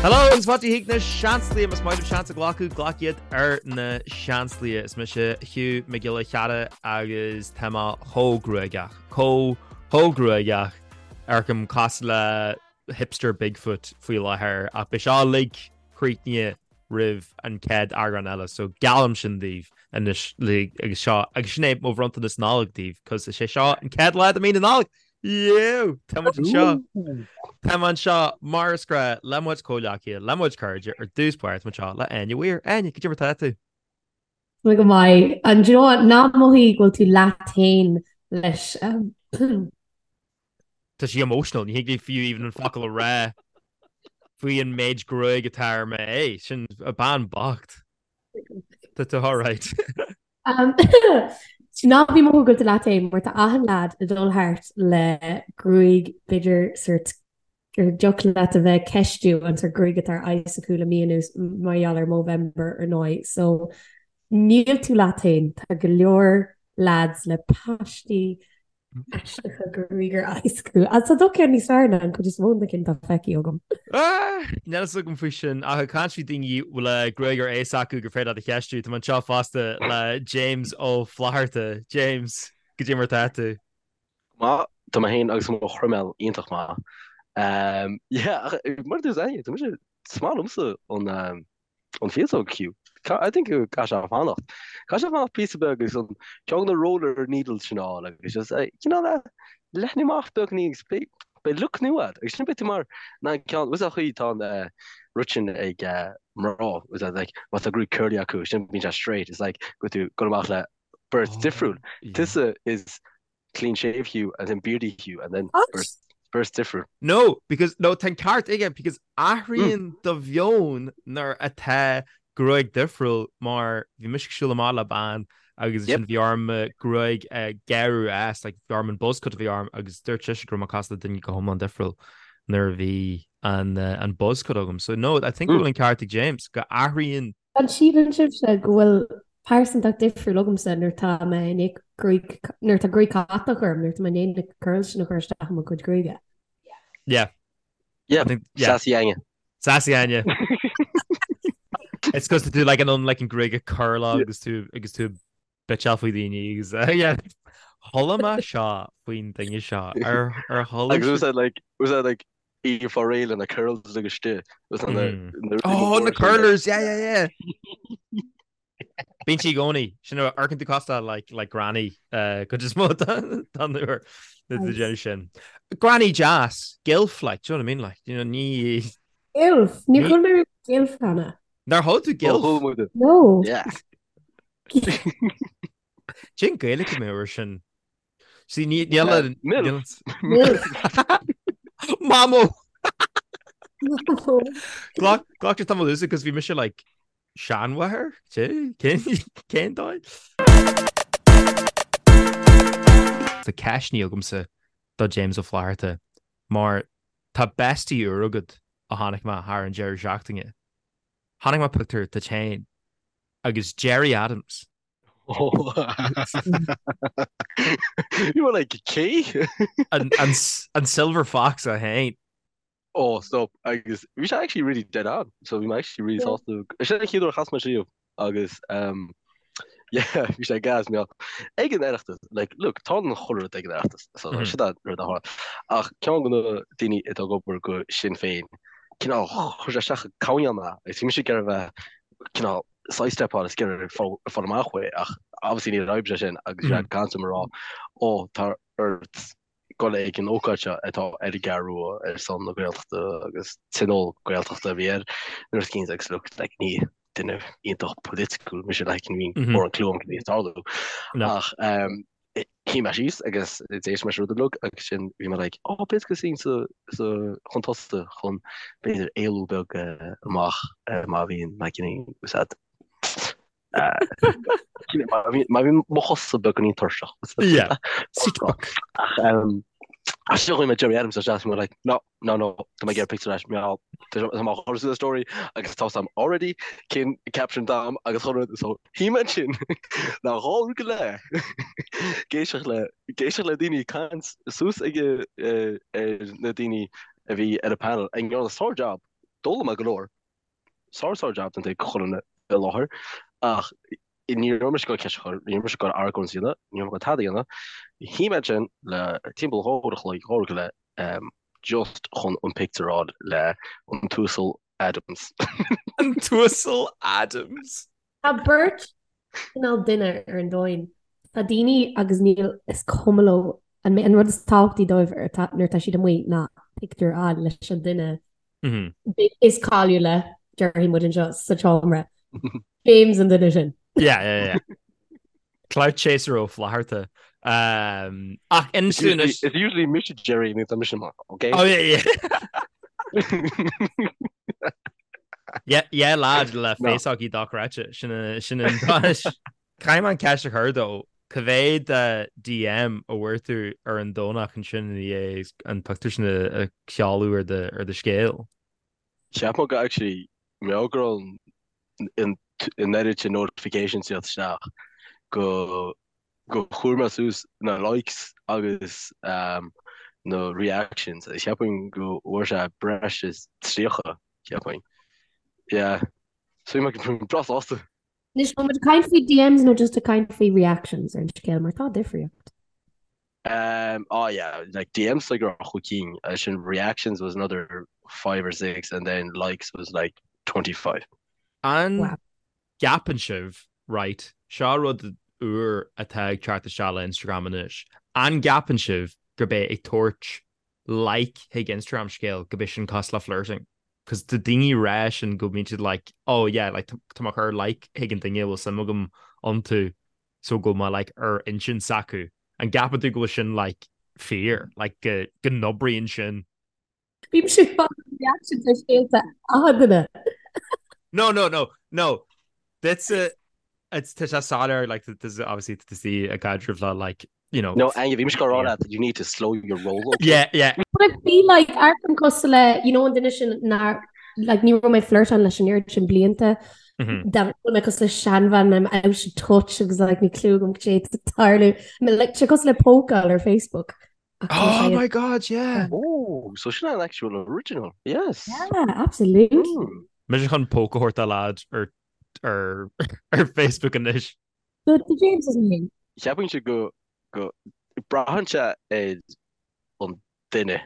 Hello agus fáilte chuig na Seansálaithe, más maith libh seans a ghlacadh, glac iad ar na Seansálaithe. Is mise Hugh Mac Giolla Cheara agus tá mé chomh gruagach, chomh chomh gruagach amharcaim cosúil le hipster Bigfoot faoi láthair ach beidh seo uilig críochnaithe roimh an chéad eagrán eile so geallaim sin daoibh anois agus seo agus sin é mo bhronntanas Nollag daoibh cos is é seo an chéad lá de mí na Nollag! Yeo! Tá muid anseo! Tá muid anseo mar is gnách le mo chuid comhghleacaithe, le mo chuid cairde ar dtús báire tá muid anseo le Áine Weir. Áine, cad é mar tá tú? Tá mé go maith. And do you know what? Ná mothaigh go bhfuil tú leat féin leis. Tá sí emotional, ní thig léi fiú even an focal a rá faoi an méid gruaig atá ar m'aghaidh. Sin a bean bocht. Tá tú alright. Ná bí ag mothú go bhfuil tú leat féin mar tá achan leaid ag dul thart le gruaig b'fhéidir sort gur dtiocfadh leat a bheith ag ceistiú an sort gruaig atá ar aghaidh s'acu le mí anuas mar gheall ar Movember ar ndóigh. So níl tú leat féin, tá go leor leaids le paistí aisteacha gruaig ar aghaidh s'acu. Agus tá do cheann níos fearr ná an chuid is mó de na cinn atá feicthe agam. Níl fhios agam faoi sin, ach ag caint faoi daoine le gruaig ar aghaidh s'acu gur féidir leat a cheistiú, tá mé anseo fosta le James Ó Flatharta. James, cad é mar atá tú? Go maith, tá mé féin agus mo chroiméal iontach maith. Yeah, ach mar a dúirt Áine, tá mise, is maith liomsa an an féasóg Hugh. I think go gcaithfidh sé fanacht. Caithfidh sé fanacht píosa beag agus an ceann na roller needles sin a fháil agus just cineál leathnú amach beagní agus beidh beidh look nua agat agus sin beidh tú mar na ceann was chaoi tá an rud sin ag mná was that like má tá gruaig curly acu sin bíonn sé straight it's like go tú go amach le beirt Oh, difriúil. yeah. Tusa is clean shave Hugh and then beardy Hugh and then What? beirt beirt difriúil. No, because, no, tá an ceart aige, because athraíonn do mheon nuair atá gruaig difriúil mar bhí mise ag siúl amach le bean agus Yep. ansin bhí orm mo gruaig a gearradh as, like bhí orm an buzz cut a bhí orm agus dúirt sise go raibh mé cosúil le duine go hiomlán difriúil nuair a bhí an, an buzz cut agam. So no, I think go bhfuil an ceart ag James go athraíonn An síleann sibhse go bhfuil pearsantacht difriúil agamsa nuair atá mé i ndiaidh gruaig, nuair atá gruaig chatach orm, nuair atá mé i ndiaidh na curls sin a chur isteach i mo chuid gruaige? Yeah. Yeah, I think, yeah. Sassy Áine. Sassy Áine. It's cos tá tú like in ann like an gruaig a curláil agus tú agus tú bitseáil faoi daoine agus yeah. Chuala mé seo faoin duine seo ar ar chuala Agus was that like was that like í fá réidh le na curls agus istigh was that na na rudaí Oh na móra sin like curlers yeah yeah yeah. Bíonn sí i gcónaí sin amharcann tú cosúil like like granny uh, cuid is mó den uair na Nice. déanamh sin. Granny deas, gilf like, do you know what I mean like, you know, ní Gilf! Níor ní chuala mé riamh gilf cheana. Nár chuala tú Ó gilf? chuala muid. No. Yeah. Cén Gaeilge a mbeadh air sin? See, ní níl a Milf. níl Milf. Mamó! Mamó. Glac glac tamall usa cos bhí mise like seanmháthair? Cé cén cén dóigh? Tá ceist agamsa do James Ó Flatharta mar tá bestie úr agat a chonaic mé thar an deireadh seachtaine. Chonaic mé pictiúr duit féin agus Gerry Adams. You were like, cé? An, an, an Silver Fox é féin. Oh, stop. Agus bhí sé actually really dead on. So bhí mé actually really sásta. Sin an chéad uair a chas mé riamh agus um, yeah, bhí sé gas mé ag an Oireachtas. Like, look, tá an chuile rud ag an Oireachtas. So mm -hmm. sin rud a tharla. Ach ceann de na daoine atá ag obair go Sinn Féin, cineál chuir sé isteach coinneal mé agus bhí mise ag iarraidh a bheith cineál sidestepáil is ag iarraidh fáil amach uaidh ach obviously níor oibrigh sé sin agus bhí sé ag caint liom ag rá ó tá ort dul ag an ócáid seo atá ar an gCeathrú Rua ar son na Gaeltachta agus tionól Gaeltachta a bhí air nuair is cinnte agus look like ní duine iontach political mise like ní mórán clue agam cad é ag tarlú ach um, Shuigh mé síos agus d'éist mé leis an rud uilig agus sin bhí mé like oh b'fhéidir go suím sa sa chun tosaigh chun b'fhéidir éalú beag amach má bhíonn má bhíonn úsáid má bhíonn má bhíonn mo chosa beagáinín tuirseach. Yeah. Seat book. Ach ach sin chuaigh mé Gerry Adams isteach bhí mé like no No, no, tá mé ag iarraidh pictiúr leis, mar tá mé á chur suas story agus tá sam already cén caption dam agus chun rud so shuigh mé ansin le dhá uair go leith ag éisteacht le ag éisteacht le daoine ag caint suas ag ar na daoine a bhí ar an panel ag ndearna sár job. D'fhoghlaim mé go leor. Sár sár jab déanta ag chuile dhuine i láthair ach ní raibh mise ag goil ceist a chur, ní raibh mise ag goil argóint a dhéanamh, ní raibh mé ag goil tada a dhéanamh. Shuigh mé ansin le timpeall 2 uair a chloig, 2 uair go leith just chun an pictiúr a fháil le an tUasal Adams. An tUasal Adams! Tá beirt cineál duine ar an domhan. Tá daoine agus níl, is cuma leo, an rud is tábhachtaí dóibh nuair atá siad amuigh ná pictiúr a fháil leis an duine is cáiliúla, déarfaidh muid anseo sa tseomra. James an duine sin. Yeah, yeah, yeah. Clout chaser Ó Flatharta. Um, ach inis dúinn anois- It's usually mise Jerry nó tá mise maith, okay? Oh, yeah, yeah. Yeah, yeah, lad le No. féasógaí dochreidte. Sin a- sin an dóis. Caithfidh mé an ceist a chur dó. Cá mhéad DM a bhfuair tú ar an Domhnach ansin i ndiaidh an pictiúr sin a sheoladh ar do ar do scéal? Cheap mé go actually mé go raibh an oiread sin notifications ag teacht isteach go go chuir mé suas na likes agus na reactions agus cheapfainn go bhfuair sé breis is 30 cheapfainn. Yeah. So bhí mé breá sásta. Anois, bhfuil muid ag caint faoi DMs nó just ag caint faoi reactions ar an scéal mar tá difríocht. Um, oh yeah, like DMs like raibh chúig cinn, sin reactions was another five or six and then likes was like 25. An Wow. gceapann sibh, right, seo rud úr atá ag teacht isteach le Instagram anois, an gceapann sibh gurb é ag tabhairt like chuig Instagram scéal gurb é sin cosúil le flirting? Cos tá daoine ag rá sin go mbíonn siad like oh yeah like tá mé ag cur like chuig an duine a bhfuil suim agam iontu so go bhfuil mé like ar intinn s'acu. An gceapann tú go bhfuil sin like fíor? Like go go n-oibríonn sin? Bímse ag fáil reactions ar scéalta achan duine. No no no no Duitse it's tá sé soiléir like there's obviously to see a caidreamh le like you know. No, Anya, bhí mise ag rá leat you need to slow your roll, okay? Yeah, yeah. But I feel like amharcaim cosúil le, you know, an duine sin nár, like, ní raibh mé flirtáil leis an oiread sin blianta. Dá bhfuil mé cosúil le seanbhean, I'm out of touch agus like níl clue agam cad é atá ag tarlú. Like, sé cosúil le pócáil ar Facebook. Ach tá Oh sé- my God, yeah. Oh, so sin an actual original, yes. Yeah, absolutely. Mise chun póca a thabhairt do lad ar ar ar Facebook anois. So the James is me. Cheapfainnse go go braitheann sé ar an duine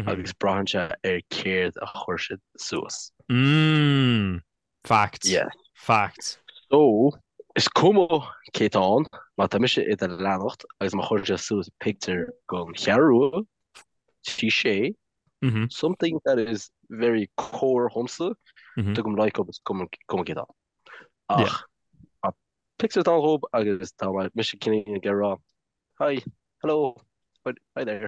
agus braitheann sé ar céard a chuir siad suas. Mm, fact. Yeah. Fact. So, is cuma cé tá ann, má tá mise i do leanacht agus má chuir sé suas pictiúr den Cheathrú Rua, sé, something that is very core dhomsa, tugaim like up is cuma cé tá. Ach tá pictiúr atá ann dhób agus tá mise cineál ag rá hi, hello, hi there.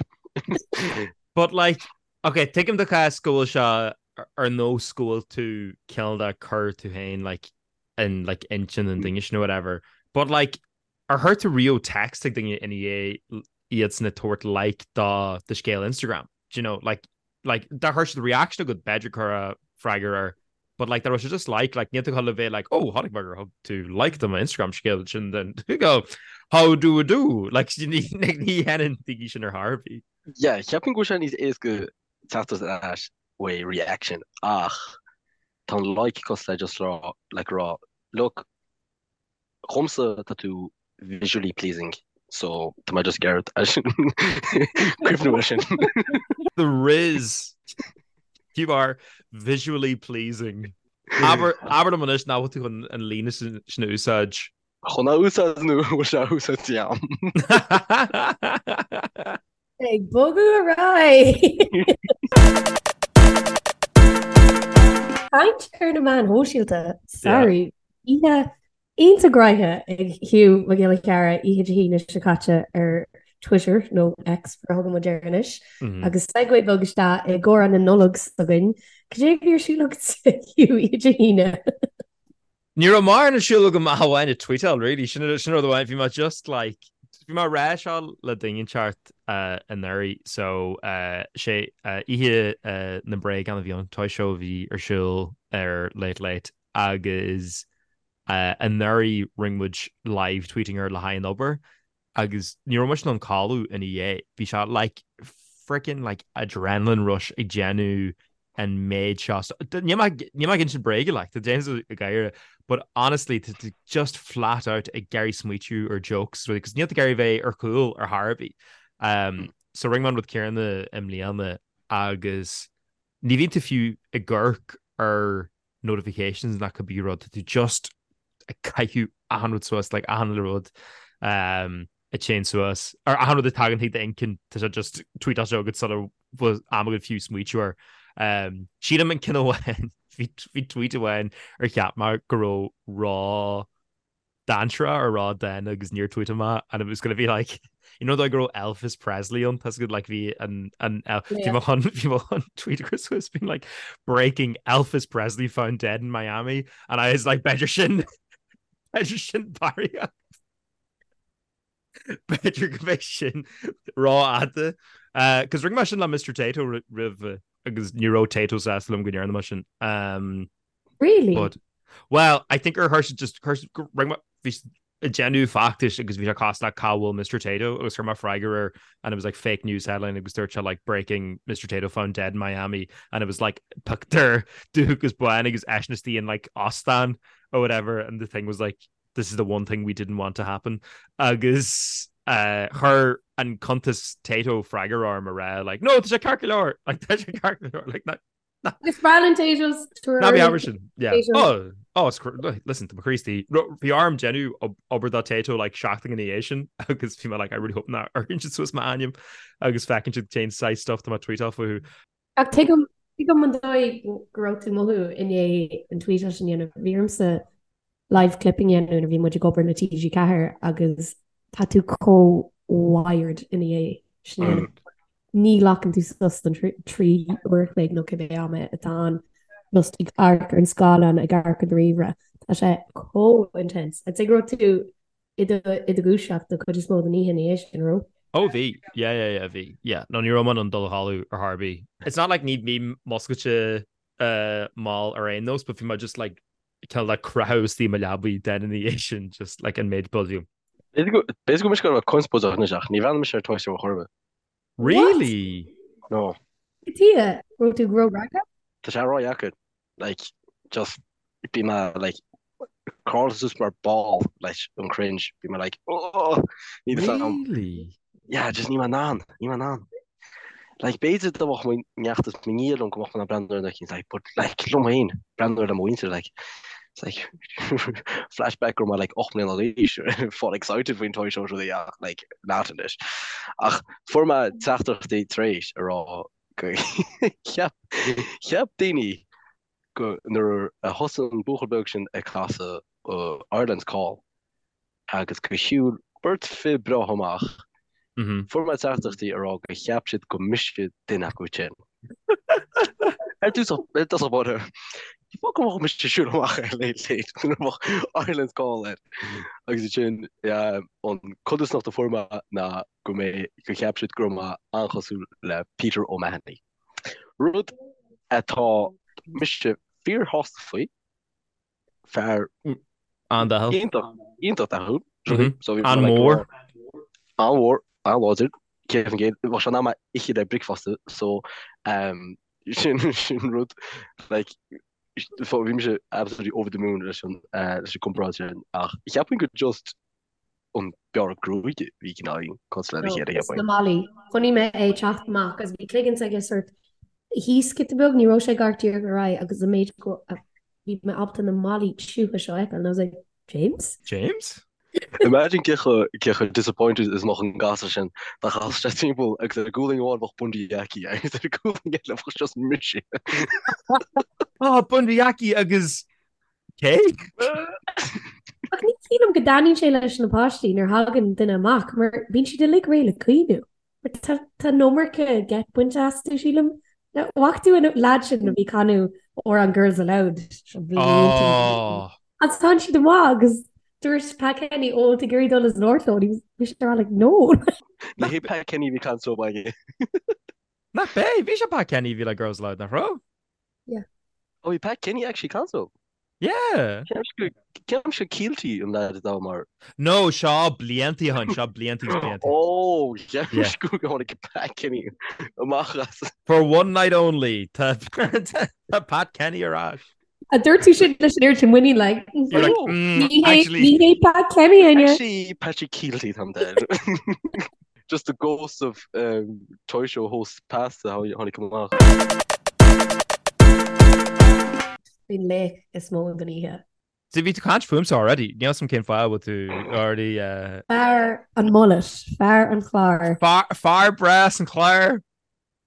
But like, ok, tuigim do chás go bhfuil sé ar nós go bhfuil tú cineál de cur tú féin like in like intinn an duine sin or whatever. But like, ar chuir tú riamh text ag duine ina dhiaidh iadsan ag tabhairt like do do scéal Instagram? Do you know, like, like dá chuir siad reaction agat b'fhéidir cuir freagra air but like dá raibh sé just like like níl tú chun le bheith like oh chonaic mé gur thug tú like do mo Instagram scéal sin then you go how do you do like ní ní dhéanann daoine sin ar chor ar bith. Yeah, cheapfainn go bhfuil sé níos éasca teacht ar ais uaidh reaction ach tá an like cosúil le just rá like rá look Dhomsa tá tú visually pleasing so tá mé just ag iarraidh cuimhniú air sin. The Riz! You are visually pleasing. Abair liom anois nach bhfuil tú chun an líne sin a úsáid. Chun a úsáid nó bhfuil sé á úsáid agam? Ag bogadh ar aghaidh! Caint ar na meáin shóisialta, sorry. Oíche iontach graiche ag Hugh Mac Giolla Chearra oíche Dé hAoine seo caite ar Twitter, nó X mar a thugann muid air anois, agus segue beag isteach i gcomhrá na Nollag s'againn. Cad é a bhí ar siúl agat, Hugh, oíche Dé hAoine? Ní raibh mórán ar siúl agam ach amháin ag tweetáil, really. Sin sin rud amháin. Bhí mé just like, bhí mé ag rá seo le duine inteacht anuraidh, so sé oíche na mbréagán a bhí ann, Toy Show a bhí ar siúl ar Late Late. agus anuraidh rinne muid live tweeting air le haghaidh an obair agus ní raibh muid in ann codladh ina dhiaidh. Bhí sé like freaking like adrenaline rush ag déanamh. an méid seo. Níl mé níl mé ag insint bréige like, tá James ag gáire, but honestly tá tú just flat out ag iarraidh smaoitiú ar jokes really, cos níl tú ag iarraidh bheith ar chúl ar chor ar bith. Um, so rinne mé an rud céanna i mbliana agus ní bhíonn tú fiú ag amharc ar notifications ná cibé rud, tá tú just ag caitheamh achan rud suas, like achan uile rud um, a théann suas, ar achan rud a tagann chuig d'intinn, tá sé just tweetáilte agat sula bhfuil am agat fiú smaoitiú air. Um, sílim an ceann amháin, bhí bhí tweet amháin ar cheap mé go raibh ró dainséarach or ródhána agus níor tweetáil mé and it was gonna be like you know like go raibh Elvis Presley ann tá good like bhí an an bhí mé chun bhí mé chun tweet a chur suas being like breaking Elvis Presley found dead in Miami and I was like b'fhéidir sin b'fhéidir sin barraíocht B'fhéidir go mbeidh sin rófhada. Cos rinne mé sin le Mr. Tayto roimh agus ní raibh Tayto sásta liom go ndearna mé sin. Um, really? But, well, I think ar chuir just rinne mé bhí ag déanamh feachtais agus bhí sé cosúil le cá bhfuil Mr. Tayto agus chuir mé freagra air and it was like fake news headline agus dúirt sé like breaking Mr. Tayto found dead in Miami and it was like pictiúr dubh agus bán agus eisean istigh in like óstán or whatever and the thing was like this is the one thing we didn't want to happen agus chuir an cuntas Tayto freagra orm a rá like no tá sé ceart go leor like tá sé ceart go leor like ná Is breá linn Taytos ná bí abair sin yeah oh oh it's listen tá mo chroí istigh bhí orm déanamh obair do Tayto like seachtain ina dhiaidh sin agus bhí mé like I really hope nach gcuireann siad suas m'ainm agus feiceann siad cén saghas stuff tá mé ag tweetáil fúthu. Ach tuigim tuigim an dóigh go raibh tú ag mothú i ndiaidh an tweet sin a dhéanamh. Bhí ormsa live clipping a dhéanamh nuair a bhí muid ag obair le TG4 agus tá tú chomh wired ina dhiaidh sin a dhéanamh. Ní ghlacann tú sos don 3 uair a chloig nó cibé am atá ann just ag amharc ar an scáileán, ag amharc ar do ríomhaire. Tá sé chomh intense. I'd say go raibh tú i do dhúiseacht don chuid is mó den oíche ina dhiaidh sin, raibh? Oh bhí, yeah yeah yeah bhí, yeah. No ní raibh mé in ann dul a chodladh ar chor ar bith. It's not like ní bhím muscailte mall ar aon nós but bhí mé just like kind of like croitheadh istigh i mo leabaidh den ina dhiaidh sin just like an méid build you. B'fhéidir go mise go raibh conspóideach anois ach ní bhreathnaigh mise ar Toy Story chor ar bith. Really? No. Cad chuige? Raibh tú ró-ragtha? Tá sé ródheacair. like just bhí mé like crawlta suas mar ball leis an cringe bhí mé like oh ní the sound Really? yeah just níl mé in ann níl mé in ann like b'fhéidir dá mbeadh mo neacht is mo nia liom go mbeadh mé in ann breathnú ar na cinn like but like liom féin breathnú ar le mo mhuintir like it's like flashback go raibh mé like 8 mbliana d'aois fáil excited faoin toy show rudaí ach like not anois ach fuair mé teachtaireachtaí tar éis a rá go cheap cheap daoine go nuair a thosaigh an buachaill beag sin ag casadh Ireland's Call agus go shiúil beirt fir breá amach, fuair mé teachtaireachtaí a rá go cheap siad go mise duine acu sin. Ar dtús ar dtús báire, fág go mbeadh mise ag siúl amach ar Late Late nuair a bheadh Ireland's Call air. Agus ansin an codarsnacht a fuair mé ná go mbeidh, go cheap siad go raibh mé an-chosúil le Peter O'Mahony. Rud atá mise fíorshásta faoi, fear An-dathúil. iontach, iontach dathúil. So bhí mé like An-mhór. An-mhór, an-láidir, 100%. Bheadh sé in ann mé a ithe le bricfeasta, so um, sin sin rud like so bhí mise absolutely over the moon leis an uh, leis an gcomparáid sin ach cheapfainn go just an bearradh gruaige bhí cineál cosúil lena chéile cheapfainn. Na malaí. Chonaic mé é ag teacht amach agus bhí cloigeann s'aige sort thíos giota beag, ní raibh sé ag amharc díreach ar aghaidh agus an méid go bhí mé ábalta na malaí tiúcha seo a fheiceáil and I was like, James? James? Imagine cé chomh cé chomh disappointed is a mbeadh an gasúr sin dá gcasfadh sé timpeall agus ar a gualainn amháin bheadh Bundee Aki agus ar a gualainn eile bheadh just mise. Ah, Bundee Aki agus Cé? Ach ní shílim go dtaitníonn sé leis na páistí nuair thagann duine amach mar bíonn siad uilig réidh le caoineadh. Mar tá tá an iomarca geit bainte astu, sílim. Bhfaca tú an leaid sin a bhí ag canadh amhrán Girls Aloud seo blianta Oh! Agus tánn siad amach agus dúirt Pat Kenny, ó, tá ag iarraidh dul as labhairt leo, bhí sé ag rá like, no! Ní hé Pat Kenny a bhí ag caint leo againn. Nach b'é? Bhí sé Pat Kenny a bhí le Girls Aloud, nach raibh? Yeah. Oh, bhí Pat Kenny actually ag caint leo. Yeah. Ceapaimse Kielty an leaid atá mar. No, seo blianta ó shin, seo blianta is blianta. Oh, ceapaimse go tháinig Pat Kenny amach as. For one night only, tá Pat Kenny ar ais. A dúirt tú sin leis an oiread sin muinín like. You're like, mm, Ní hé actually. ní hé Pat Kenny inniu. Actually, Patrick Kielty tá dead. Just the ghost of um, Toy Show host past a tháinig amach. Faoin laoch is mó den oíche. So bhí tú ag caint fúmsa already, níl 'fhios a'm cén fáth a bhfuil tú already uh, Fear an mullet, fear an chláir. Fear, fear breá as an chlár!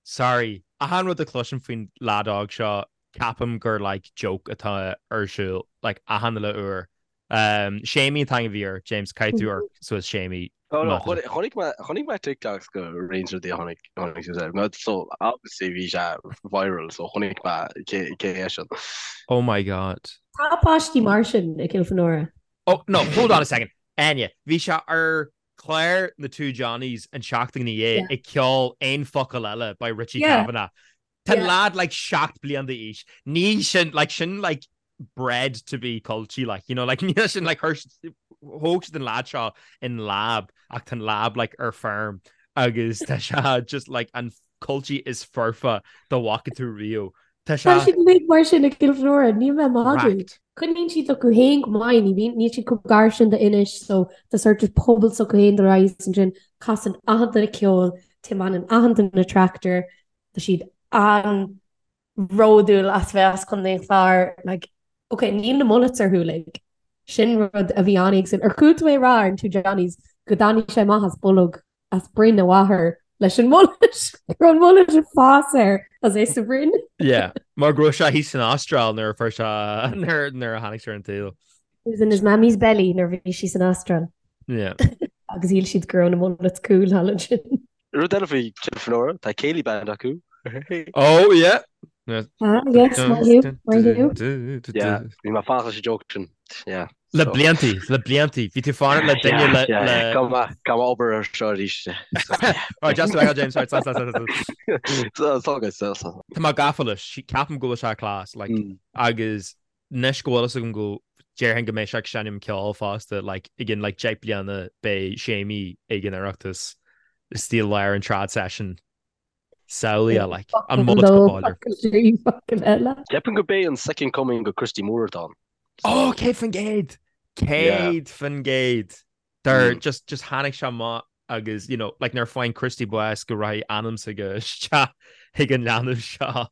Sorry, achan rud a chloisim faoin leaid óg seo, ceapaim gur like joke atá ar siúl, like achan uile uair. Um, Séimí an t-ainm a bhí air, James, caithfidh tú amharc suas Séimí. No, no, chonaic mé, chonaic mé TikToks go roinnt rudaí a tháinig, tháinig suas air. No, so, obviously bhí sé viral, so chonaic mé cé, cé é sin. Oh my God. Tá páistí mar sin i gCill Fhionnúrach. Oh, no, hold on a second. Áine, bhí sé ar chlár na Two Johnnies an tseachtain ina dhiaidh ag ceol Aon Focal Eile by Richie Kavanagh. Tá an lad like 7 bliain d'aois. Ní sin like sin like bred to be culchie like you know like níl sin like thóg siad an lad seo in lab ach tá an lab like ar feirm agus tá sé just like an culchie is foirfe dá bhfaca tú riamh. Tá sé. Tá siad uilig mar sin i gCill Fhionnúrach, níl mé ag magadh. Coinníonn siad acu féin go maith, ní bhíonn, níl siad chomh gar sin d'Inis so tá sort of pobal s'acu féin dul ar aghaidh ansin, casann achan duine ceol, tiomáineann achan duine tractor, tá siad an-bhródúil as bheith as Contae an Chláir, like, ok, níl na mullets orthu uilig, sin rud a bhí an-éagsúil. Ar chuala tú é a rá ar an Two Johnnies go dtáinig sé amach as bolg as broinn a mháthar leis an mullet, go raibh an mullet ag fás air as é sa bhroinn. Yeah, mar go raibh sé thíos san Astráil nuair a fuair sé, nuair a tháinig sé ar an tsaol. He was in his mammy's belly nuair a bhí sí san Astráil. Yeah. Agus shíl siad go raibh na mullets cool thall ansin. Rud eile faoi Cill Fhionnúrach, tá céilí band acu. Oh yeah! Ah, yes, maith thú, maith thú. Yeah, bhí mé ag fanacht leis an joke sin. Yeah. Le bliantaí, le bliantaí. Bhí tú fanacht le duine le... Yeah, yeah, Caithfidh mé, caithfidh mé obair ar seo arís. Right, just to James, right, sorry, sorry, sorry. It's all good, so. Tá mé gafa leis, ceapaim go bhfuil sé class, like, agus anois go bhfuil fhios agam go déarfainn go mbeidh sé ag seinm ceoil fosta, like, i gcionn like 10 bliana beidh Séimí ag an Oireachtas istigh i lár an trad session. Samhlaigh like, an mullet go báidir. Ceapaim go b'é an second coming go Christy Moore atá ann. Oh, 100%! 100%! Dar just just tháinig sé amach agus you know like nuair a faigheann Christy bás go rachaidh anam s'aige isteach chuig an leanbh seo.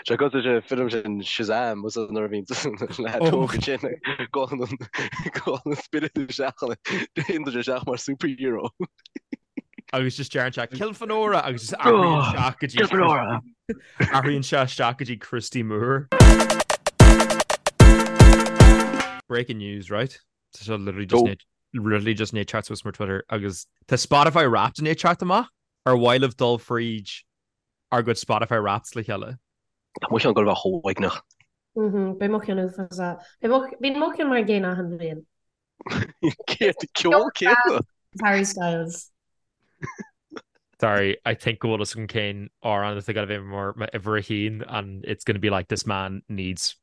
Sé cosúil leis an film sin Shazam was nuair a bhíonn leaid óg ansin gabhann an gabhann an spiorad isteach ann téann sé isteach mar superhero. Agus just deireann sé Cill Fhionnúrach agus just athraíonn isteach go dtí Cill Fhionnúrach! athraíonn sé isteach go dtí Christy Moore. Breaking news, right? Tá sé literally just Go. literally just i ndiaidh teacht suas mar Twitter agus tá Spotify Wrapped i ndiaidh teacht amach ar mhaith libh dul fríd ár gcuid Spotify Wrapped le chéile. Tá mo cheann ag gabháil a bheith chomh uaigneach. Beidh mo cheann uafásach. Bíonn mo cheann mar an gcéanna achan bhliain. Céard ceol céanna? Harry Styles. Sorry, I think go bhfuil fhios agam cén amhrán atá ag gabháil a bheith mar m'uimhir a haon and it's gonna be like this man needs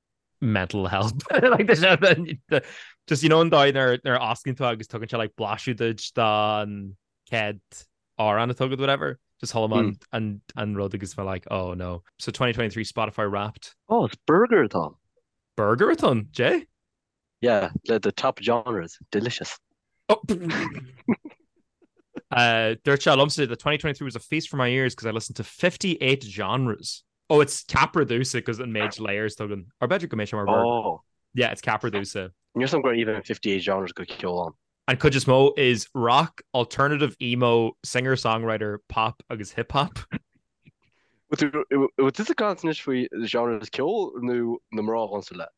mental help. Like the, the, the, just you know an dóigh nuair nuair a osclaíonn tú agus tugann sé like blaiseadh duit den chéad amhrán atá agat whatever. Just chuala mé an, an, an rud agus mé like oh no. So 2023 Spotify Wrapped. Oh, it's burger atá ann. Burger atá ann, Jay? Yeah, le the top genres. Delicious. Oh. Uh, dúirt sé liomsa that 2023 was a feast for my ears because I listened to 58 genres. Oh, it's ceapar domhsa because an méid layers atá againn. Or b'fhéidir go mbeidh sé mar burger. Oh. Yeah, it's ceapar domhsa. Níl 'fhios a'm go raibh even 58 genres go ceol ann. An cuid is mó is rock, alternative, emo, singer-songwriter, pop agus hip-hop. Bhfuil tusa ag caint anois faoi genres ceoil nó na mná a ghabhann leat?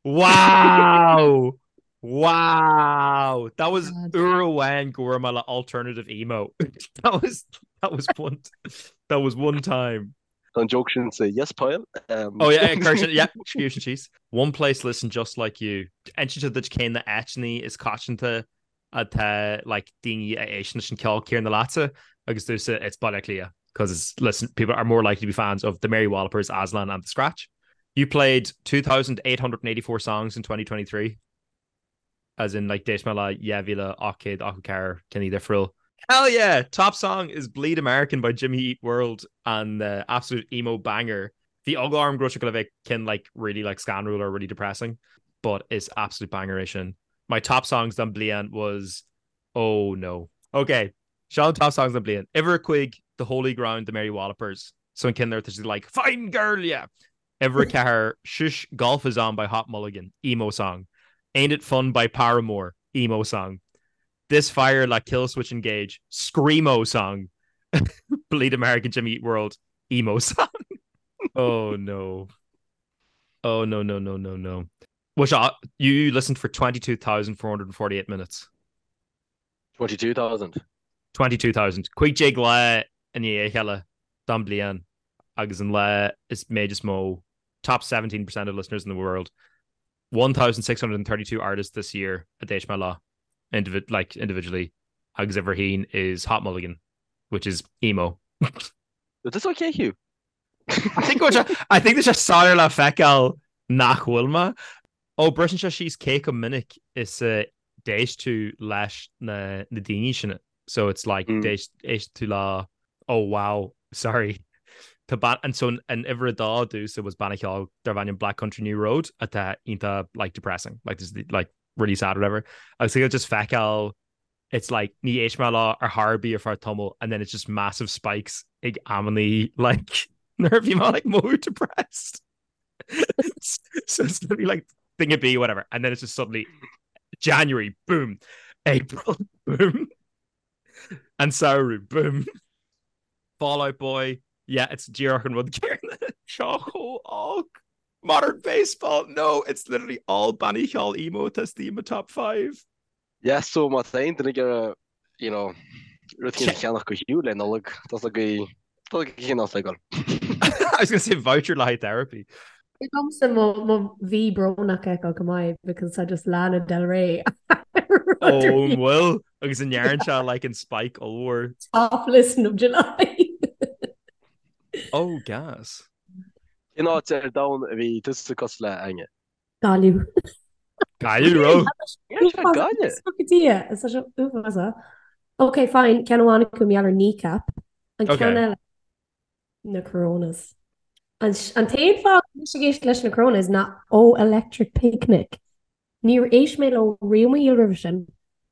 Wow! Wow! That was uair amháin go bhfuair mé le alternative emo. That was that was one that was one time. Tá an joke sin sa Yes Pile. Oh yeah, cuir sin, yeah, scríobh sin síos. One place listen just like you. Insíonn sé duit cé na áiteanna is coitianta atá like daoine a éisteann leis an ceol céanna leatsa agus domhsa it's Baile Átha Cliath because it's listen people are more likely to be fans of the Mary Wallopers, Aslan and The Scratch. You played 2,884 songs in 2023. As in like d'éist mé le 2,884 ceann difriúil. Hell yeah! Top song is Bleed American by Jimmy Eat World an uh, absolute emo banger. Bhí eagla orm go raibh sé le bheith ceann like really like scanrúil or really depressing, but is absolute banger é sin. My top songs don bliain was oh no. Okay, seo an top songs don bliain. Uimhir a cúig The Holy Ground the Mary Wallopers. So an ceann ar tá siad like fine girl yeah. Uimhir a ceathair Shush Golf is on by Hot Mulligan, emo song. Ain't It Fun by Paramore, emo song. This Fire le Killswitch Engage, screamo song. Bleed American Jimmy Eat World, emo song. Oh no. Oh no no no no no. Which uh, you listened for 22,448 minutes. 22,000. 22,000. 15 lá i ndiaidh a chéile don bliain agus an lá is méid is mó top 17% of listeners in the world 1,632 artists this year a d'éist mé leo individ like individually agus uimhir a haon is Hot Mulligan which is emo. Is this okay Hugh? I think go I think tá sé soiléir le feiceáil nach bhfuil mé. Ó briseann sé síos cé chomh minic is a d'éist tú leis na na daoine sin. So it's like mm. d'éist éist tú le oh wow sorry. Tá ban an so an uimhir a dó domhsa was banna ceoil darb ainm Black Country New Road atá iontach like depressing like this like really sad or whatever. Agus just feiceáil it's like ní éist mé leo ar chor ar bith ar feadh tamaill and then it's just massive spikes ag amannaí like nuair a bhí mé like more depressed. So it's gonna be like thing a B whatever and then it's just suddenly January boom April boom and samhradh boom Fall Out Boy yeah it's díreach an rud céanna seo chomh olc Modern Baseball no it's literally all bannaí ceoil emo atá istigh i mo top 5. Yeah so má tá aon duine ag iarraidh you know rud éigin a cheannach do Hugh le Nollaig tá a fhios agaibh tá a fhios agaibh cén áit le dul. I was gonna say voucher le haghaidh therapy. Thig liomsa mo mo mhí brónach a fheiceáil go maith because tá just Lana Del Rey Ó an bhfuil agus an ndearn sé like an spike ollmhór. Top listen of July. Oh gas. Cén áit ar domhan a bhí tusa cosúil le Áine? Gaillimh. Gaillimh raibh? Gaillimh. Is é uafásach. Ok, fine, ceann amháin acu mar gheall ar Kneecap. An ceann eile na Coronas. An t-aon fáth go bhfuil mise ag éisteacht leis na Coronas ná ó Electric Picnic. Níor éist mé leo riamh i mo shaol roimhe sin.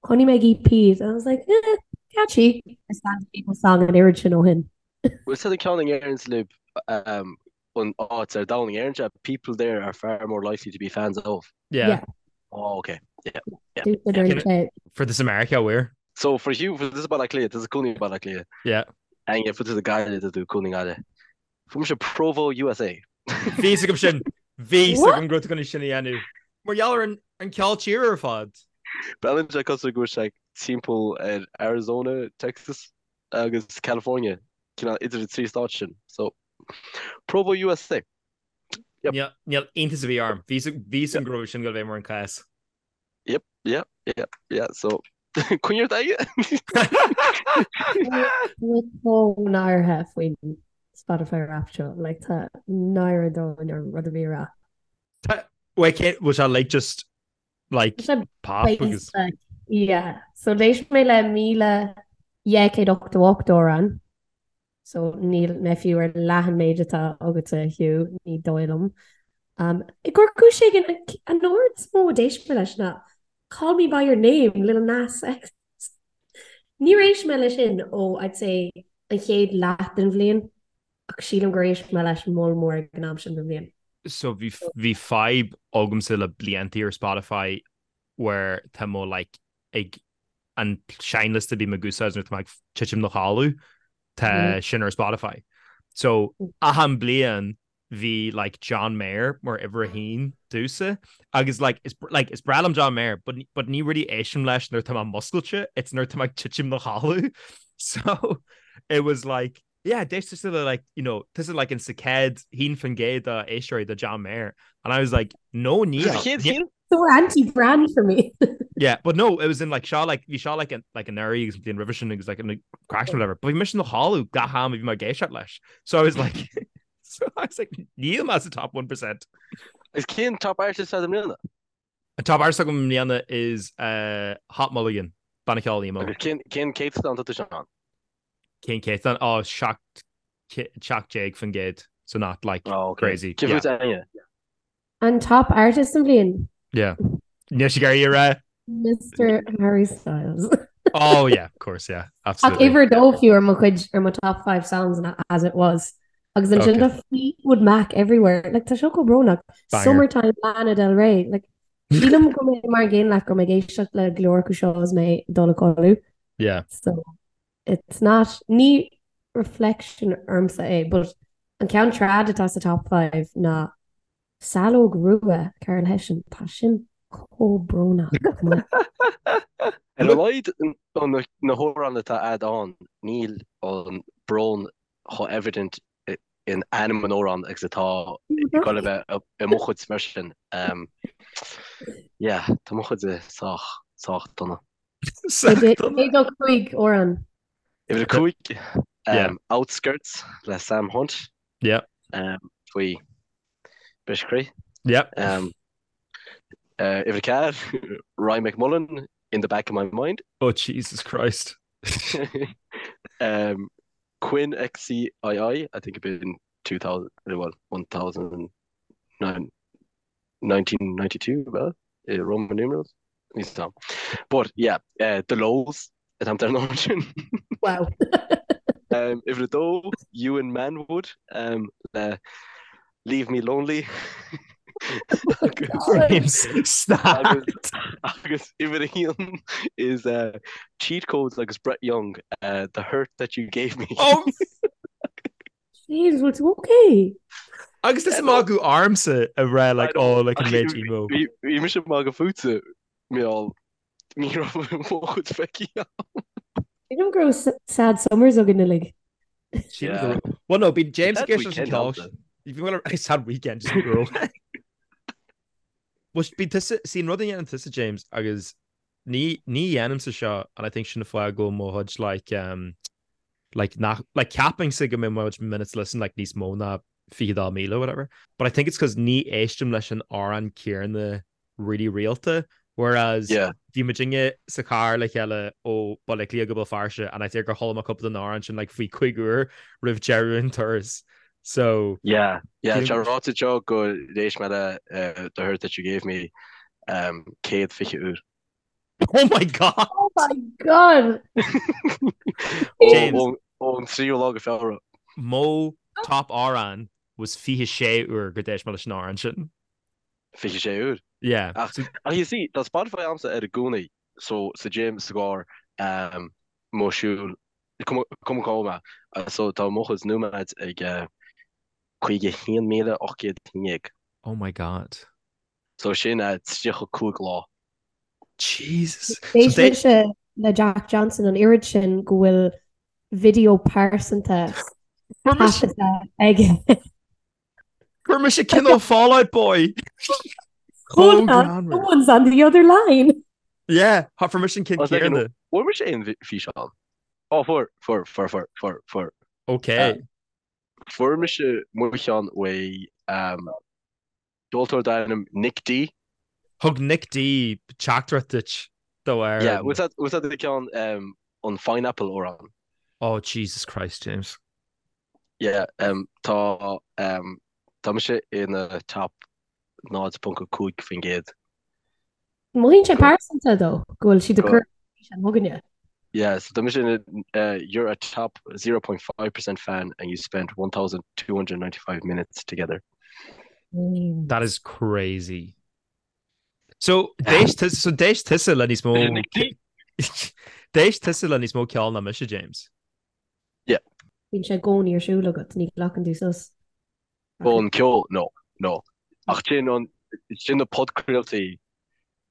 Chonaic mé EP and I was like, eh, catchy. Is Stand People song an oiread sin ó shin. Bhfuil sé an ceann a ndeireanns libh an áit ar domhan a ndeireann sé people there are far more likely to be fans of. Yeah. Yeah. Oh, okay. Yeah. Yeah. Yeah. Fuair tusa Meiriceá where? So fuair Hugh fuair tusa Baile Átha Cliath, tusa cónaí Baile Átha Cliath. Yeah. Áine fuair tusa Gaillimh tá tú cónaí i nGaillimh. Fuair mise Provo USA. Bhí fhios agam sin. Bhí fhios agam go raibh tú chun sin a dhéanamh. Mar gheall ar an an ceol tíre ar fad. Breathnaíonn sé cosúil go bhfuil sé timpeall ar Arizona, Texas agus California, cineál idir na trí stát sin. So Provo USA. Yep. Níl níl iontas ar bith orm. Bhí fhios agam go raibh sin go bheith mar an cás. Yep, yep, yep, yeah, so coinnigh ort aige. Chomh náirithe faoin Spotify Wrapped seo, like tá náire dóin ar rud a bhí rá. Wait, cé was that like just like pop agus Yeah, so d'éist mé le 1,288 amhrán. So níl mé fiú ar leath an méid atá agatsa, Hugh, ní dóigh liom. Um, I gcomhair cúis éigin, an amhrán is mó a d'éist mé leis ná Call Me By Your Name, Lil Nas X. Níor éist mé leis sin ó, I'd say, an chéad leath den bhliain, ach sílim gur éist mé leis moll mór ag an am sin den bhliain. So bhí bhí fadhb agamsa le blianta ar Spotify where tá mo like ag an seinnliosta a bím ag úsáid nuair atá mé ag titim 'na chodladh, tá sin ar Spotify. So achan bliain bhí like John Mayer mar uimhir a haon domhsa agus like is like is breá liom John Mayer but but ní really éistim leis nuair atá mé múscailte, it's nuair atá mé ag titim 'na chodladh. So it was like yeah, d'éist tusa le like, you know, tusa like in sa chéad 1% de éisteoirí de John Mayer. And I was like, no níl. Sa chéad chéad? So anti-brand for me. Yeah, but no, it was in like seo like bhí seo like an like anuraidh agus an bhliain roimhe sin agus like an crash or whatever. But bhí mise 'na chodladh gach am a bhí mé ag éisteacht leis. So I was like. So I was like, níl mé sa top 1%. Is cén top artist agat i mbliana? An top artist agam i mbliana is uh, Hot Mulligan, banna ceoil emo. Agus cén cén céatadán atá tusa ann? Cén céatadán? Oh, 17%, so not like Oh, okay. crazy. Cé Yeah. fút Áine? An top artist an bhliain? Yeah. Níl sí ag iarraidh a rá. Mr Harry Styles. Oh yeah, of course, yeah. Ach Absolutely. uimhir a dó fiú ar mo chuid ar mo top 5 songs and as it was. Agus ansin Okay. tá Fleetwood Mac everywhere. Like tá seo chomh brónach. Banger. Summertime Lana Del Rey. Like sílim go mbeidh mar an gcéanna leat go mbeidh ag éisteacht le go leor acu seo is mé ag dul a chodladh. Yeah. So it's not ní reflection ormsa é, but an ceann trad atá sa top 5 ná Saileog Rua, Carol Hession, tá sin chomh brónach. Ar a laghad na hamhráin atá a'd ann, níl an brón chomh evident in ainm an amhráin agus atá ag goil a bheith i mo chuid mar sin. Yeah, tá mo chuid sách, sách dona. Sách dona. Cé do 5 amhrán? Uimhir 5, Outskirts le Sam Hunt. Yeah. Faoi briseadh croí. Yeah. Uimhir 4, Ryan McMullen, In the Back of My Mind. Oh Jesus Christ. um, Quinn XCII, I think it'd been 2000, well, 1009, 1992, well, uh, Roman numerals. Níos tam. But yeah, uh, The Lows, atá ar an sin. Wow. Um, uimhir a dó, Ewan Manwood, um, le Leave Me Lonely. James, stop. Agus, agus uimhir a haon is uh, Cheat Codes agus Brett Young, uh, The Hurt That You Gave Me. Oh, James, bhfuil tú okay? Agus tusa ag magadh ormsa ag rá like oh like an méid emo. Bhí mise ag magadh fútsa mar ní raibh mo chuid feicthe agam. Sílim go raibh sad summers againn uilig. Yeah. Well no, bíonn James ag éisteacht leis an ceol. Bhí mé ag sad weekend just go raibh. Well bíonn tusa, see an rud a dhéanann tusa James agus ní ní dhéanaimse seo and I think sin an fáth go bhfuil mo chuid like um like nach like ceapaimse go mbeidh mo chuid minutes listened like níos mó ná 22,000 or whatever but I think it's 'cause ní éistim leis an amhrán céanna really rialta whereas Yeah. bhí muidinne sa charr le chéile ó Baile Átha Cliath go Béal Feirste and I think gur chuala mé cúpla den amhrán sin like faoi chúig uair roimh deireadh an turas so Yeah, yeah, Sílim- tá ráite seo gur éist mé le uh, The Hurt That You Gave Me um, 120 uair. Oh my God! Oh my God! James. Ón tríú lá go Feabhra. Mo top amhrán was 26 uair gur d'éist mé leis an amhrán sin. 26 uair? Yeah. Ach, ach you see, tá Spotify a'msa air i gcónaí, so sa gym, sa gcarr, um, mo siúl, cuma cá bhfuil mé, so tá mo chuid nóiméad ag uh, 51,811. Oh my God. So sin uh, 35 lá. Jesus. D'éist mise le Jack Johnson an oiread sin go bhfuil video pearsanta taifeadta aige. Fuair mise ceann ó Fall Out Boy. Hold on, someone's on the other line. Yeah, fuair mise an ceann céanna. Fuair mise aon físeán. Ó fuair, fuair, fuair, fuair, fuair, fuair. Ok. Fuair mise mo cheann uaidh Ceoltóir darb ainm Nick D. Thug Nick D teachtaireacht duit do ar Yeah, was that was that the ceann um, an Pineapple amhrán? Oh Jesus Christ, James. Yeah, um, tá um, tá mise ina top 0.5%. Mothaíonn sé pearsanta dó go bhfuil siad ag cur an chugainne. Yeah, so tá mise ina uh, you're a top 0.5% fan and you spent 1,295 minutes together. Mm. That is crazy. So d'éist tusa so d'éist tusa le níos mó D'éist tusa le níos mó ceol ná mise, James. Yeah. Bíonn sé i gcónaí ar siúl agat, ní ghlacann tú sos. Ón ceol, no, no. Ach sin an sin na podchraoltaí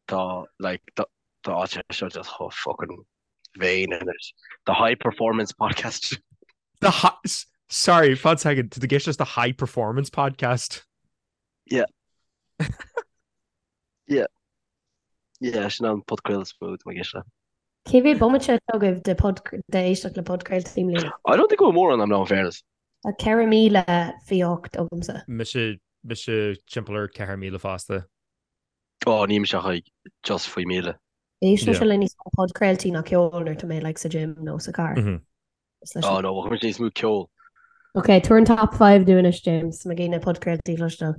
tá like tá tá sé seo just chomh fucking vain anois. The high performance podcast. The high, sorry, fan second, to the guest just the high performance podcast. Yeah. Yeah. Yeah, sin an podchraoladh is mó atá mé ag éisteacht le. Cé mhéad bomaite atá agaibh de pod de éisteacht le podchraoltaí i mbliana? I don't think go bhfuil mórán agam in fairness. Tá 4,028 agamsa. Mise, mise timpeall ar 4,000 fosta. Ó, níl mise ach ag just faoi 1,000. Éistimse le níos mó podchraoltaí ná ceol nuair atá mé like sa gym nó sa car. Ó no, chuir níos mó ceol. Ok, tabhair an top 5 dúinn anois, James, má ghin na podchraoltaí cloisteáil.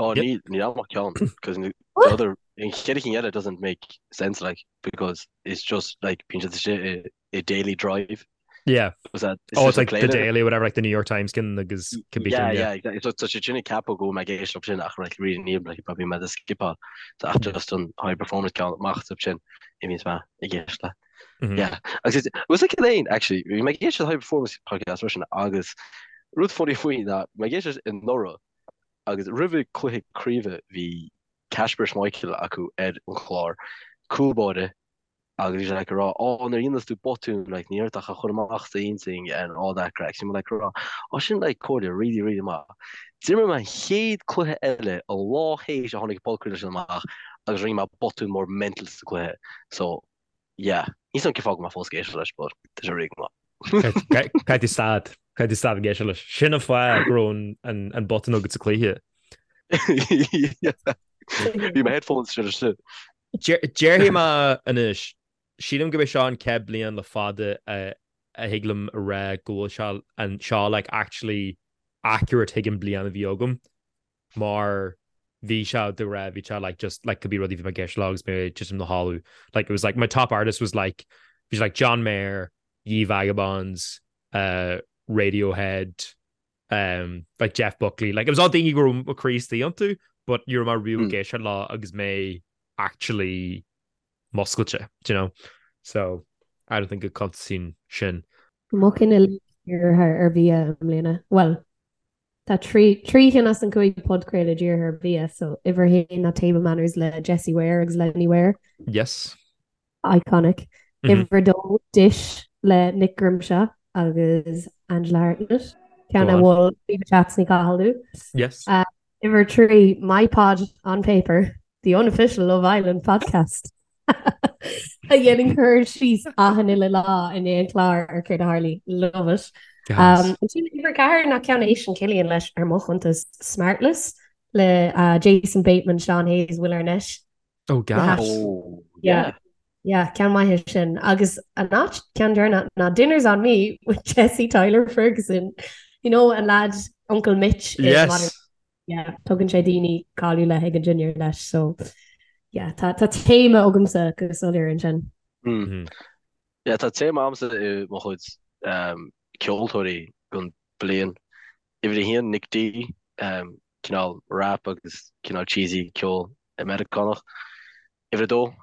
Ó, ní ní am ach ceann, because the other, an chéad cinn eile doesn't make sense like, because it's just like bíonn siad istigh i i daily drive. Yeah. Was that, oh, it's like the Daily, whatever, like the New York Times can agus can be Yeah, yeah, exactly. So tá sé sin ag ceapadh go mbeidh ag éisteacht sin ach like really níl like probably mé ag skipáil. So ach just an high performance ceann amach sin i bhíonns mé ag éisteacht le. Yeah. Agus is was like aon actually bhí mé ag éisteacht le high performance podcast freisin agus rud funny faoi ná mé ag éisteacht anuraidh agus roimh cluiche craoibhe bhí Kasper Schmeichel acu ar an chlár cúl báire agus bhí sé like ag rá oh nuair a dhéanas tú botún like ní ort ach a chur amach sa intinn and all that craic. So bhí mé like ag rá oh sin like comhairle really really maith. D'imir mé an chéad cluiche eile an lá théis a tháinig an podchraoladh sin amach agus rinne mé botún mór mental sa cluiche. So yeah, níl 's agam cén fáth go bhfuil mé fós ag éisteacht leis but tá sé really maith. Caithfidh tú stad, caithfidh tú stad ag éisteacht leis. Sin an fáth go raibh an botún agat sa cluiche. Bhí mo headphones sin sin. Déarfaidh mé anois, sílim gurb é seo an chéad bliain le fada a thig liom a rá go bhfuil sé an seo like actually accurate chuig an bliain a bhí agam mar bhí sé de rá bhí sé like just like could be rudaí bhí mé ag éisteacht leo agus mé ag titim 'na chodladh like it was like my top artist was like bhí sé like John Mayer, Ye Vagabonds, uh, Radiohead, um, like Jeff Buckley, like it was all daoine go raibh mo chroí istigh iontu, but ní raibh mé riamh ag éisteacht leo agus mé actually muscailte, do you know? So I don't think go cuntasaíonn sin. Mo chinn uilig dírithe ar bhia i mbliana. Bhuel, tá trí trí chinn as an gcúig podchraoladh dírithe ar bhia, so uimhir a haon ná Table Manners le Jessie Ware agus Lenny Ware. Yes. Iconic. Uimhir a dó, Dish le Nick Grimshaw agus Angela Hartnett. Ceann a mhol Viva Chats Ní Cathal dom. Yes. Uimhir a trí, My Pod on Paper, the unofficial Love Island podcast. A dhéanann cur síos achan uile lá i ndiaidh an chláir ar céard a tharlaigh. Love it. Ansin uimhir a ceathair ná ceann a éisteann Cillian leis ar mo chuntas Smartless le Jason Bateman, Sean Hayes, Will Arnett. Oh, gas. Oh, yeah. Yeah, ceann maith é sin. Agus an áit ceann deireanach ná Dinner's on Me with Jesse Tyler Ferguson. You know, an lad Uncle Mitch. Yes. Yeah, tugann sé daoine cáiliúla ag an dinnéar leis, so yeah, tá tá téama agamsa go soiléir ansin. Mm. Mm-hmm. Yeah, tá téama agamsa i mo chuid um, ceoltóirí don bliain. Uimhir a haon, Nick D, um, cineál rap agus cineál cheesy ceol Meiriceánach. Uimhir a dó,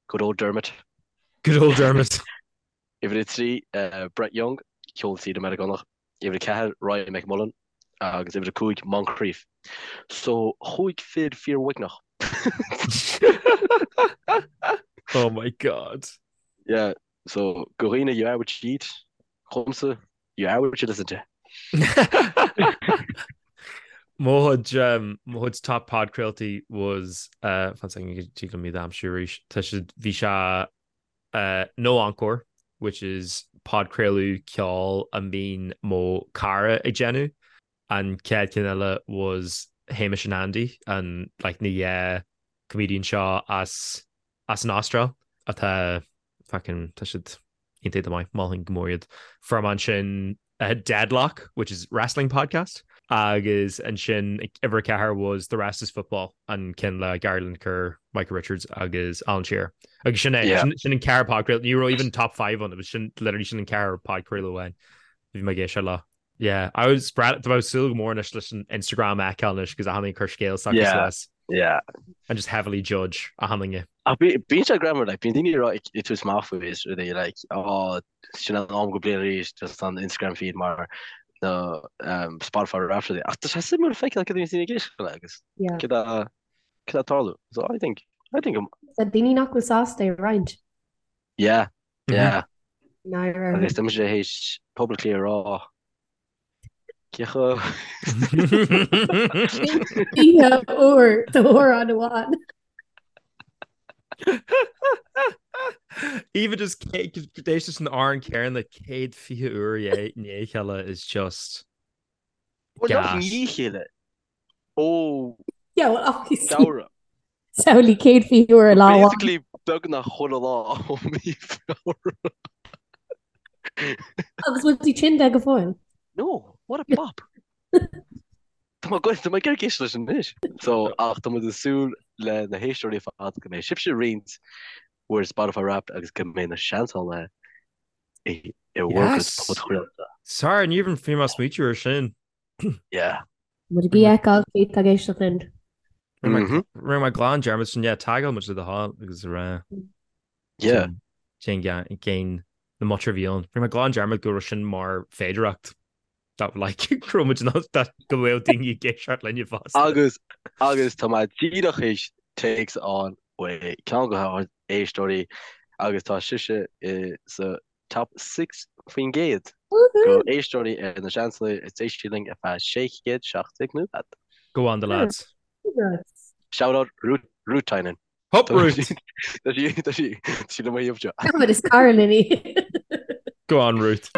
good old Dermot. Good old Dermot. Uimhir a trí, Brett Young, ceol tíre Meiriceánach. Uimhir a ceathair, Ryan McMullan agus uimhir a cúig, Moncrieff. So, chúig fir fíor-uaigneach. Oh my God. Yeah, so do dhaoine you are what you eat, dhomsa, You are what you listen to. Mo chuid mo chuid top podchraoltaí was uh, fan second go dtig liom iad a aimsiú arís. Tá siad bhí sé uh, No Encore, which is podchraoladh ceoil a mbíonn mo cara ag déanamh. An chéad ceann eile was Hamish and Andy, an like na dhá comedian seo as as an Astráil atá fucking tá siad iontach go maith, mholfainn go mór iad. Fuair mé ansin Deadlock, which is wrestling podcast, agus ansin uimhir a ceathair was The Rest is Football, an ceann le Gary Lineker, Micah Richards agus Alan Shearer. Agus sin é, sin an ceathair podchraoladh, ní raibh even top 5 ann, it was sin literally sin an ceathair podchraoladh amháin. Bhí mé ag éisteacht leo. Yeah, I was spread tá mé ag súil go mór anois leis an Instagram a fheiceáil anois agus achan duine ag cur scéal s'acu suas. Yeah. And just heavily judge achan duine. Ach bíonn sé greannmhar, like, bíonn daoine ag rá ag tabhairt amach faoi is rudaí like, oh, sin an am den bhliain arís, just an Instagram feed mar na um, Spotify Wrapped rudaí. Ach tá sé suimiúil feiceáil cad a bhíonn daoine ag éisteacht le agus Yeah. cad a cad a tarlú. So I think I think I'm, Tá daoine nach bhfuil sásta é a roinnt. yeah, yeah. Náire. Agus tá mise théis publicly a rá cé chomh Oíche úr d'amhrán amháin. Even just d'éist leis an amhrán céanna 120 uair i ndiaidh a chéile is just Well, not gas. i ndiaidh a chéile. Ó Yeah, well, obviously. Feabhra. Samhlaigh 120 uair i lá amháin. Basically beagnach chuile lá ó mí Feabhra. Agus bhfuil tú tinn de go fóill? No, what a bop. Tá mé tá mé ag iarraidh éisteacht leis anois. So, ach tá muid ag súil le na héisteoirí ar fad go mbeidh sibhse ag roinnt bhur Spotify Wrapped agus go mbeidh na seansálaithe i i bhur gcuid Yes! podchraolta. Sorry, ní raibh mé ag smaoitiú ar sin. Yeah. Muid ag feiceáil cé atá ag éisteacht linn. Mhm. Rinne mé glan dearmad sin, yeah, tagáil muid le do thoil agus a rá. Yeah. Cén cén na mutter a bhí ann. Rinne mé glan dearmad go raibh sin mar féidearthacht. That like go raibh muid in ann that go bhfuil daoine ag éisteacht linne fosta. Agus agus tá mé díreach théis téacs a fháil ó ceann de ár éisteoirí agus tá sise i sa top 6% de éisteoirí ar na Seansálaithe is d'éist sí linn ar feadh 617 nóiméad. Go on the lads. Shout out Ruth Ruth Tynan. Hup Ruth! Tá sí tá sí tá sí le mo thaobh seo. But is cara linn í. Go on Ruth.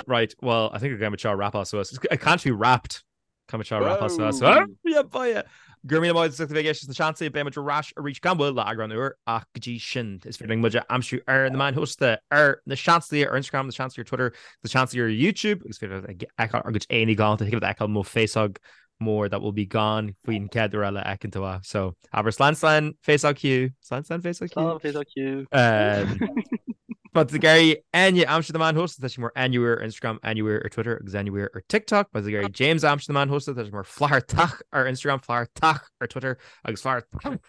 Right, well, I think we're going to wrap us suas. It can't be wrapped. Caithfidh muid seo a wrap suas. Whoa! Yeah, boy. Go raibh míle maith agat as ucht a bheith ag éisteacht leis na Seansálaithe, beidh muid ar ais arís gan mhoill le eagrán úr ach go dtí sin is féidir linn muid a aimsiú ar na meáin shóisialta ar na Seansálaithe ar Instagram, na Seansálaithe ar Twitter, na Seansálaithe ar YouTube agus féidir leat fheiceáil ár gcuid éadaí galánta, thig leat fheiceáil mo féasóg mór that will be gone faoin chéad uair eile a fheiceann tú é. So abair slán slán féasóg Hugh, slán slán féasóg Hugh. Slán féasóg Hugh. Má tá tú ag iarraidh Áine a aimsiú ar na meáin shóisialta, tá sí mar Áine Weir ar Instagram, Áine Weir ar Twitter agus Áine Weir ar TikTok. Má tá tú ag iarraidh James a aimsiú ar na meáin shóisialta, tá sé mar Flathartach ar Instagram, Flathartach ar Twitter agus Flathartach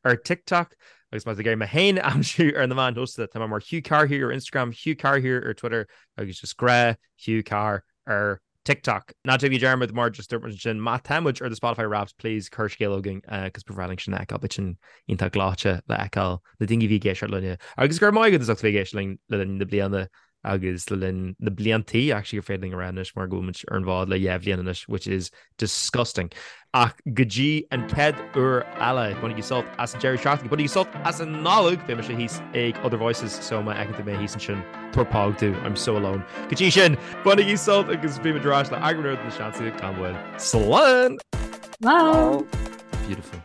ar TikTok. Agus má tá tú ag iarraidh mé féin a aimsiú ar na meáin shóisialta, tá mé mar Hugh Carr here ar Instagram, Hugh Carr here ar Twitter agus just grá Hugh Carr ar TikTok. Ná déanaigí dearmad mar just dúirt muid ansin, má tá muid ar do Spotify Wrapped, please cuir scéal chugainn cos ba bhreá linn sin a fheiceáil, beidh sin iontach gleoite le fheiceáil na daoine a bhí ag éisteacht linne. Agus go raibh maith agat as ucht a bheith ag éisteacht linn le linn na bliana agus le linn na bliantaí actually gur féidir linn a rá anois mar go bhfuil muid ar an bhfód le dhá bhliain anois which is disgusting. Ach go dtí an chéad uair eile, bainigí sult as an deireadh seachtaine, bainigí sult as an Nollaig, beidh mise thíos ag Other Voices so má fheiceann tú mé thíos ansin, tabhair póg domh, I'm so alone. Go dtí sin, bainigí sult agus beimid ar ais le eagrán úr de na Seansálaithe gan mhoill. Slán! Slán! Beautiful.